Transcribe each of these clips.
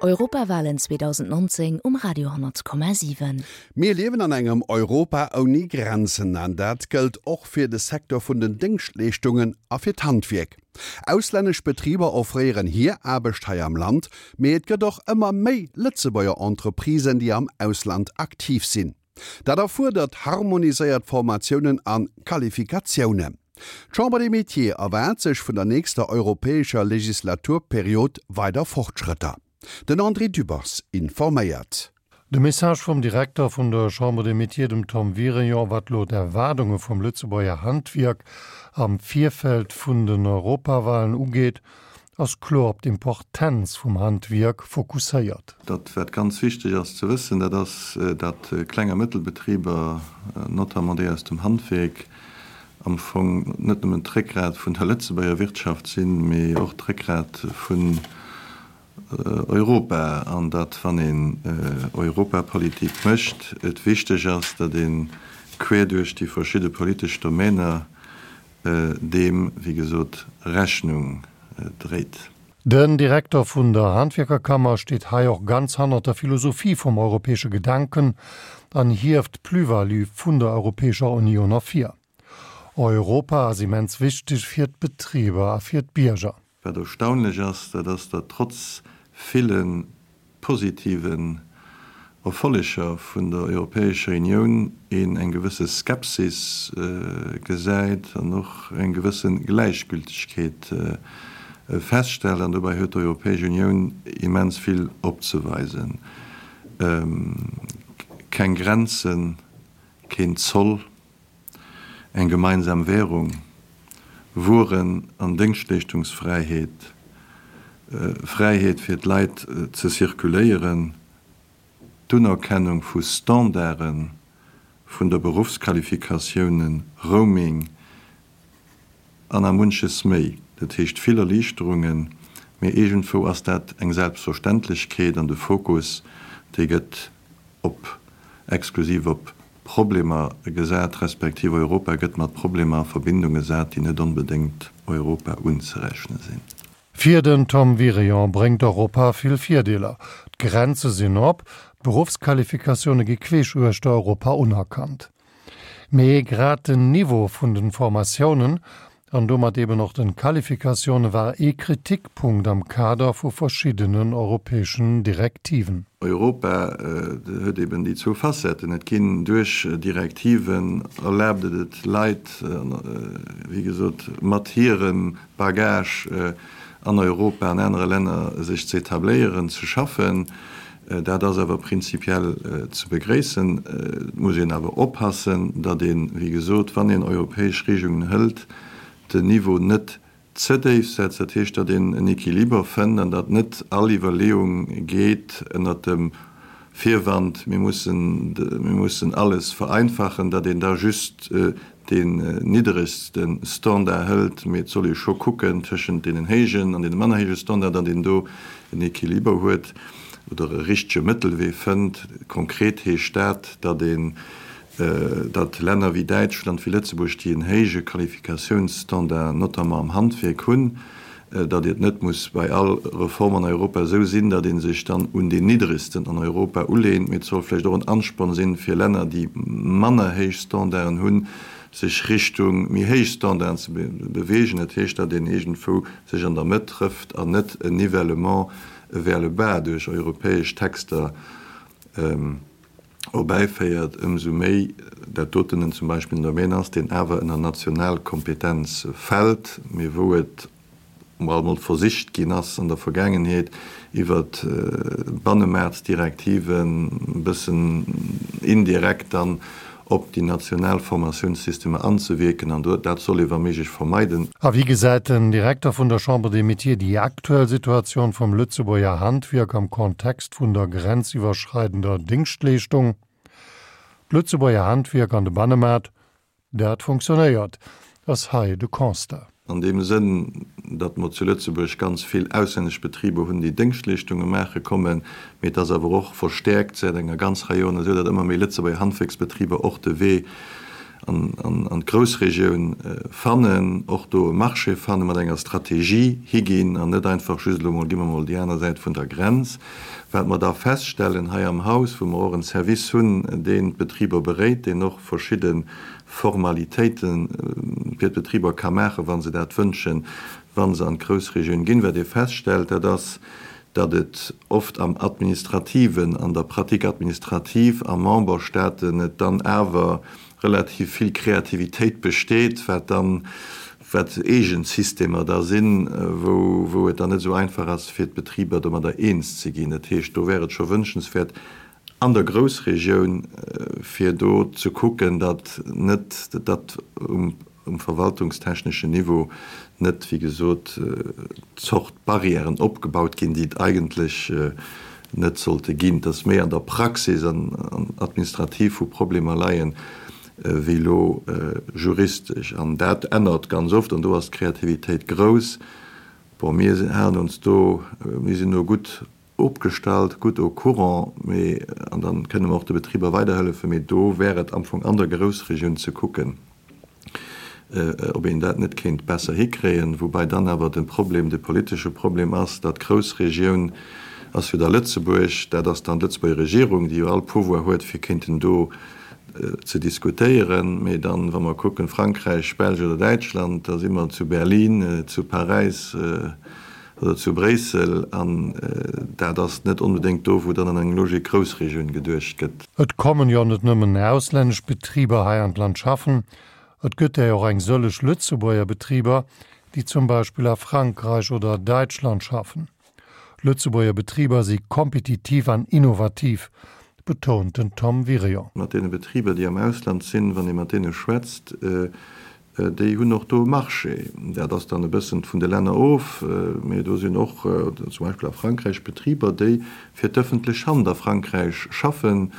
Europawalen 2019 um Radio 10,7. Mir liewen an engem Europa ouni Grenzen an dat gëllt och fir de Secteur vun den Déngschtleeschtungen a fir d'Handwierk. Auslännesch Betriber offréieren hir Aarbecht hei am Land, mee et gëtt och ëmmer méi Lëtzebuerger Entreprisen, déi am Ausland aktiv sinn. Dat erfuerdert harmoniséiert Formatiounen a Qualifikatiounen. D'Chambre des Métiers erwaart sech vun der nächster europäescher Legislaturperiod weider Fortschrëtter. Den André Dübbers informéiert. De Message vum Direkter vun der Chambre des Métiers, dem Tom Wirion, wat elo d'Erwaardunge vum Lëtzebuerger Handwierk am Virfeld vun den Europawalen ugeet, ass kloer op d'Importenz vum Handwierk fokusséiert. Dat wat ganz wichteg ass ze wëssen, dat ass, datt Kleng a Mëttelbetriber, notamment déi aus dem Handwierk, am Fong net nëmmen d'Réckgrat vun der Lëtzebuerger Wirtschaft sinn, mee och d'Réckgrat vun Europa, an datt, wann een Europapolitik mécht, et wichteg ass, datt ee quer duerch déi verschidde politesch Domäner deem, wéi gesot, Rechnung dréit. Den Direkter vun der Handwierkerkammer steet hei och ganz hannert der Philosophie vum europäesche Gedanken an hieft d'Plus-value vun der Europäescher Unioun ervir. Europa ass immens wichteg fir d'Betriber a fir d'Bierger. Wat erstaunlech ass, dat ass, datt trotz ville positiven Erfolleger vun der Europäescher Unioun een eng gewësse Skepsis gesäit an och eng gewësse Gläichgültegkeet feststellt. An dobäi huet d'Europäesch Unioun immens vill opzeweisen, keng Grenzen, keen Zoll, eng gemeinsam Währung, Wueren an Déngschtleeschtungsfräiheet, Fräiheet fir d'Leit ze circuléieren, d'Unerkennung vu Standarde vun der Beruffsqualifikatiounen, Roaming an a munches méi. Dat heescht vill Erliichterungen, mee iergendwou ass dat eng Selbstverständlechkeet an de Fokus, dee gëtt op exklusiv op Problemer gesat, respektiv Europa gëtt mat Problemer a Verbindung gesat, déi net onbedéngt Europa unzerechne sinn. Fir den Tom Wirion bréngt Europa vill Virdeeler, D'Grenze sinn op, d'Beruffsqualifikatioune gi queesch uechter Europa unerkannt. Mee grad den Niveau vun den Formatiounen an domat eben och den Qualifikatioune war ee Kritikpunkt am Kader vu verschiddenen europäeschen Direktiven. Europa huet eben déi zwou Facetten. Et ginn duerch Direktiven erlaabt et et Leit, wéi gesot, mat hirem Bagage an Europa, an anere Länner sech ze etabléieren, ze schaffen. Dat ass awer prinzipiell ze begréissen. Et muss een awer oppassen, datt een, wéi gesot, wann een europäesch Regelungen hëlt, den Niveau net ze déif setzt. Dat heescht, datt een en Equiliber fënnt an datt net all Iwwerleeung geet ënnert dem Virwand, mir mussen, mir mussen alles vereinfachen, datt een da just deen nidderegste Standard hëlt, mee et soll ee scho kucken tëschent deenen héijen an deene manner héije Standard, datt een do en Equiliber huet oder e richtege Mëttelwee fënnt. Konkret heescht dat, datt een, datt Länner wéi Däitschland, wéi Lëtzebuerg, déi en héije Qualifikatiounsstandard, notamment am Handwierk hunn, datt et net muss bei all Reform an Europa esou sinn, datt ee sech dann un deen nidderegsten an Europa uleent, mee et soll vläicht och en Ansporn sinn, fir Länner, déi manner héich Standarden hunn, sech Richtung méi héich Standarden ze beweegen. Dat heescht, datt een iergendwou sech an der Mëtt trëfft an net en Nivellement vers le bas duerch europäesch Texter erbäiféiert, ëmsou méi dat doten en zum Beispill en Domaine ass, deen awer ënner national Kompetenz fält, mee wou et alt mol versicht ginn ass an der Vergaangenheet iwwer Bannemaartsdirektiven e bëssen indirekt dann op déi national Formatiounssystemer anzewierken, an dat soll ee wa méiglech vermeiden. A wéi gesäit den Direkter vun der Chambre des Métiers déi aktuell Situatioun vum Lëtzebuerger Handwierk am Kontext vun der grenziwwerschreidender Déngschtleeschtung? D'Lëtzebuerger Handwierk an de Bannemaart, dat funktionéiert, ass hei de Constat. An deem Sënn, datt mer zu Lëtzebuerg ganz vill auslännesch Betriber hunn, déi Déngschtleeschtunge maache kommen, mee et ass awer och verstäerkt säit enger ganz Rei Joren esou, datt ëmmer méi Lëtzebuerger Handwierksbetriber och de Wee. An d'Groussregioun fannen, och do e Marché fannen, mat enger Strategie higinn an net einfach just elo mol, gi mer mol déi aner Säit vun der Grenz. Wat mer da feststellen hei am Haus, wou mer och en Service hunn, deen d'Betriber beréit, deen och verschidde Formalitéite fir d'Betriber ka maachen, wa se dat wënschen, wa se an d'Groussregioun ginn, wat ee feststellt, dat ass, datt et oft am Administrativen, an der Pratique administrative a Memberstaaten et dann awer relativ vill Kreativitéit besteet, wat dann, wat eegen Systemer da sinn, wou, wou et dann net esou einfach ass, fir d'Betriber domadder eens ze ginn. Dat heescht, do wär et scho wünschenswäert an der Groussregioun, fir do ze kucken, datt net, datt um um verwaltungstechneschen Niveau net, wéi gesot, Zort Barrièren opgebaut ginn, déi et eigentlech net sollte ginn, dass méi an der Praxis an administrativ wou Problemer leien, wéi elo juristesch. An dat ännert ganz oft an do ass d'Kreativitéit grouss. Bon, mir halen ons do, mir sinn do gutt opgestallt, gutt au courant, mee, an da kënne mer och de Betriber weiderhëllefen, mee do wär et am Fong an der Groussregioun ze kucken, ob een dat net kéint besser hikréien, woubai dann awer de Problem, de politesche Problem ass, datt d'Groussregioun ass jo da Lëtzebuerg, dat ass dann d'Lëtzebuerger Regierung, déi jo all Pouvoir huet, fir kéinten do ze diskutéieren, mee dann, wa mer kucken, Frankräich, Belsch oder Däitschland, da si mer zu Berlin, zu Paräis, oder zu Bréissel, an dat ass net onbedéngt do, wou dann an eng Logik Groussregioun geduecht gëtt. Et kommen jo net nëmmen auslännesch Betriber hei an d'Land schaffen, et gëtt der och eng sëlleg Lëtzebuerger Betriber, déi zum Beispill a Frankräich oder Däitschland schaffen. Lëtzebuerger Betriber si kompetitiv an innovativ, betount den Tom Wirion. Mat deene Betriber, déi am Ausland sinn, wann ee mat deene schwätzt, Déi hunn och do e Marché. Dat ass dann e bëssen vun de Länner of, mee do sinn och zum Beispill a Frankräich Betriber, déi fir d'ëffentlech Hand a Frankräich schaffen.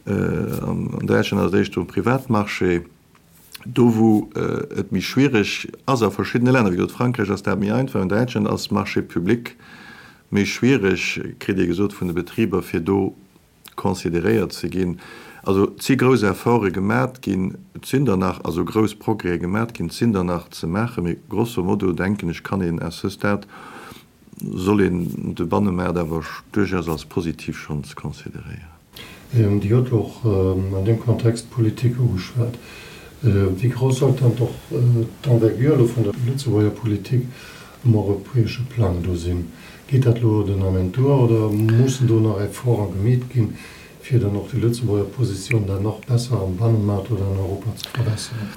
An Däitschland ass et éischter um Privatmarché. Do wou et méi schwiereg ass a verschiddene Länner, wéi gesot Frankräich ass dat méi einfach, an Däitschland ass Marché public méi schwiereg, kritt ee gesot vun de Betriber, fir do consideréiert ze ginn. Also et si grouss Efforte gemat ginn, et sinn der nach, also grouss Progrèse gemat ginn, et sinn der nach ze maachen, mee grosso modo, denken ech, kann een à ce stade, soll een de Bannemaart awer duerchaus als positiv schonns consideréieren. Dir hutt och an deem Kontext d'Politik ugeschwat. Wéi grouss sollt dann och d'Envergure elo vun der Lëtzebuerger Politik um europäesche Plang do sinn. Geet dat elo den Ament duer oder mussen do nach Efforte gemeet ginn, fir dann och déi Lëtzebuerger Positioun dann nach besser am Bannemaart oder an Europa ze verbesseren?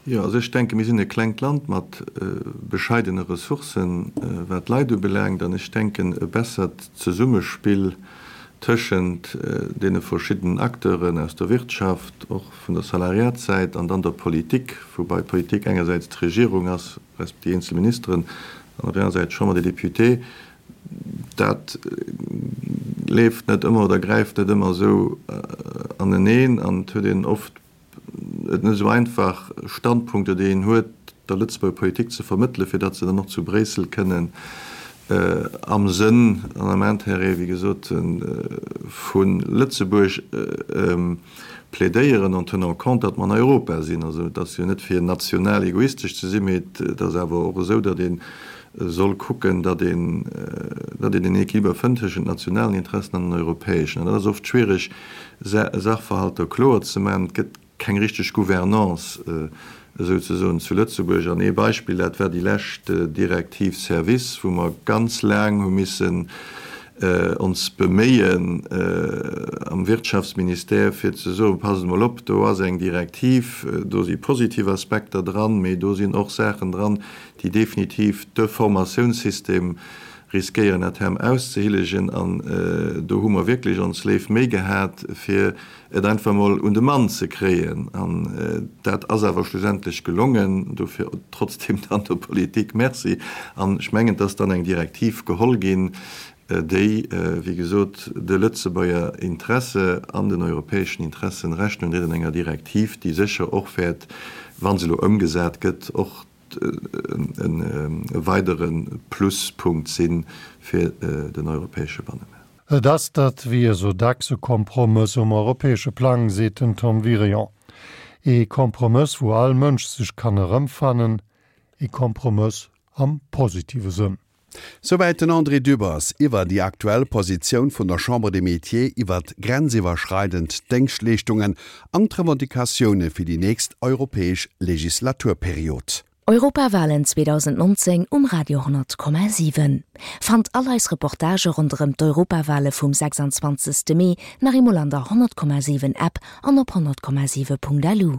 Jo, also ech denken, mir sinn e klengt Land mat bescheidene Ressourcen, wat d'Leit ubelaangt, an ech denken, e bessert Zesummespill tëschent deene verschiddenen Acteuren aus der Wirtschaft, och vun der Salariatssäit, an dann der Politik, woubai d'Politik engersäits d'Regierung ass, resp. Déi eenzel Ministeren an op der anerer Säit d'Chambre des Députés, dat leeft net ëmmer oder gräift net ëmmer esou aneneen an et huet een oft et net esou einfach, Standpunkter, déi een huet, der Lëtzebuerger Politik ze vermëttelen, fir datt se dann och zu Bréissel kënnen am Sënn an am Intérêt, wéi gesot, vu Lëtzebuerg plädéieren, en tenant compte, datt mer an Europa sinn. Also et ass jo net fir national egoistesch ze sinn, mee et ass awer och esou, datt ee soll kucken, datt een, datt een en Équiliber fënnt tëschent nationalen Interessen an den europäeschen. An dat ass oft schwiereg, Sachverhalter kloer ze maachen. Et gëtt keng richteg Gouvernance esouzesoen zu Lëtzebuerg. An ee Beispill, dat war déi lescht Direktiv Service, wou mer ganz laang hu missen ons beméien am Wirtschaftsministère, fir ze soen, Passt emol op, do ass eng Direktiv, do si positiv Aspekter dran, mee do sinn och Saachen dran, déi definitiv de Formatiounssystem riskéieren à terme auszehillegen. An do hu mer wierklech ons léif Méi gehat, fir et einfach emol un de Mann ze kréien. An dat ass awer schlussendlech gelongen. Dofir trotzdem dann der Politik Merci. An ech mengen, et ass dann eng Direktiv geholl ginn, déi, wéi gesot, de Lëtzebuerger Interesse an den europäeschen Interessen Rechnung dréit an enger Direktiv, déi sécher och wäert, wa se elo ëmgesat gëtt, och e weidere Pluspunkt si fir den europäesche Bannemaart. Et ass dat wéi esou dacks e Kompromëss um europäesche Plang, seet den Tom Wirion. Ee Kompromëss, wou all Mënsch sech kann erëmfannen. Ee Kompromëss am positive Sënn. Souwäit den André Dübbers iwwer déi aktuell Positioun vun der Chambre des Métiers iwwert grenziwwerschreidend Déngschtleeschtungen an d'Revendicatioune fir déi nächst europäesch Legislaturperiod. Europawalen 2019 um Radio 10,7. Fannt all eis Reportagë ronderëm d'Europawale vum 26. Mee nach eemol an der 100,7 App an op 100,7.lu.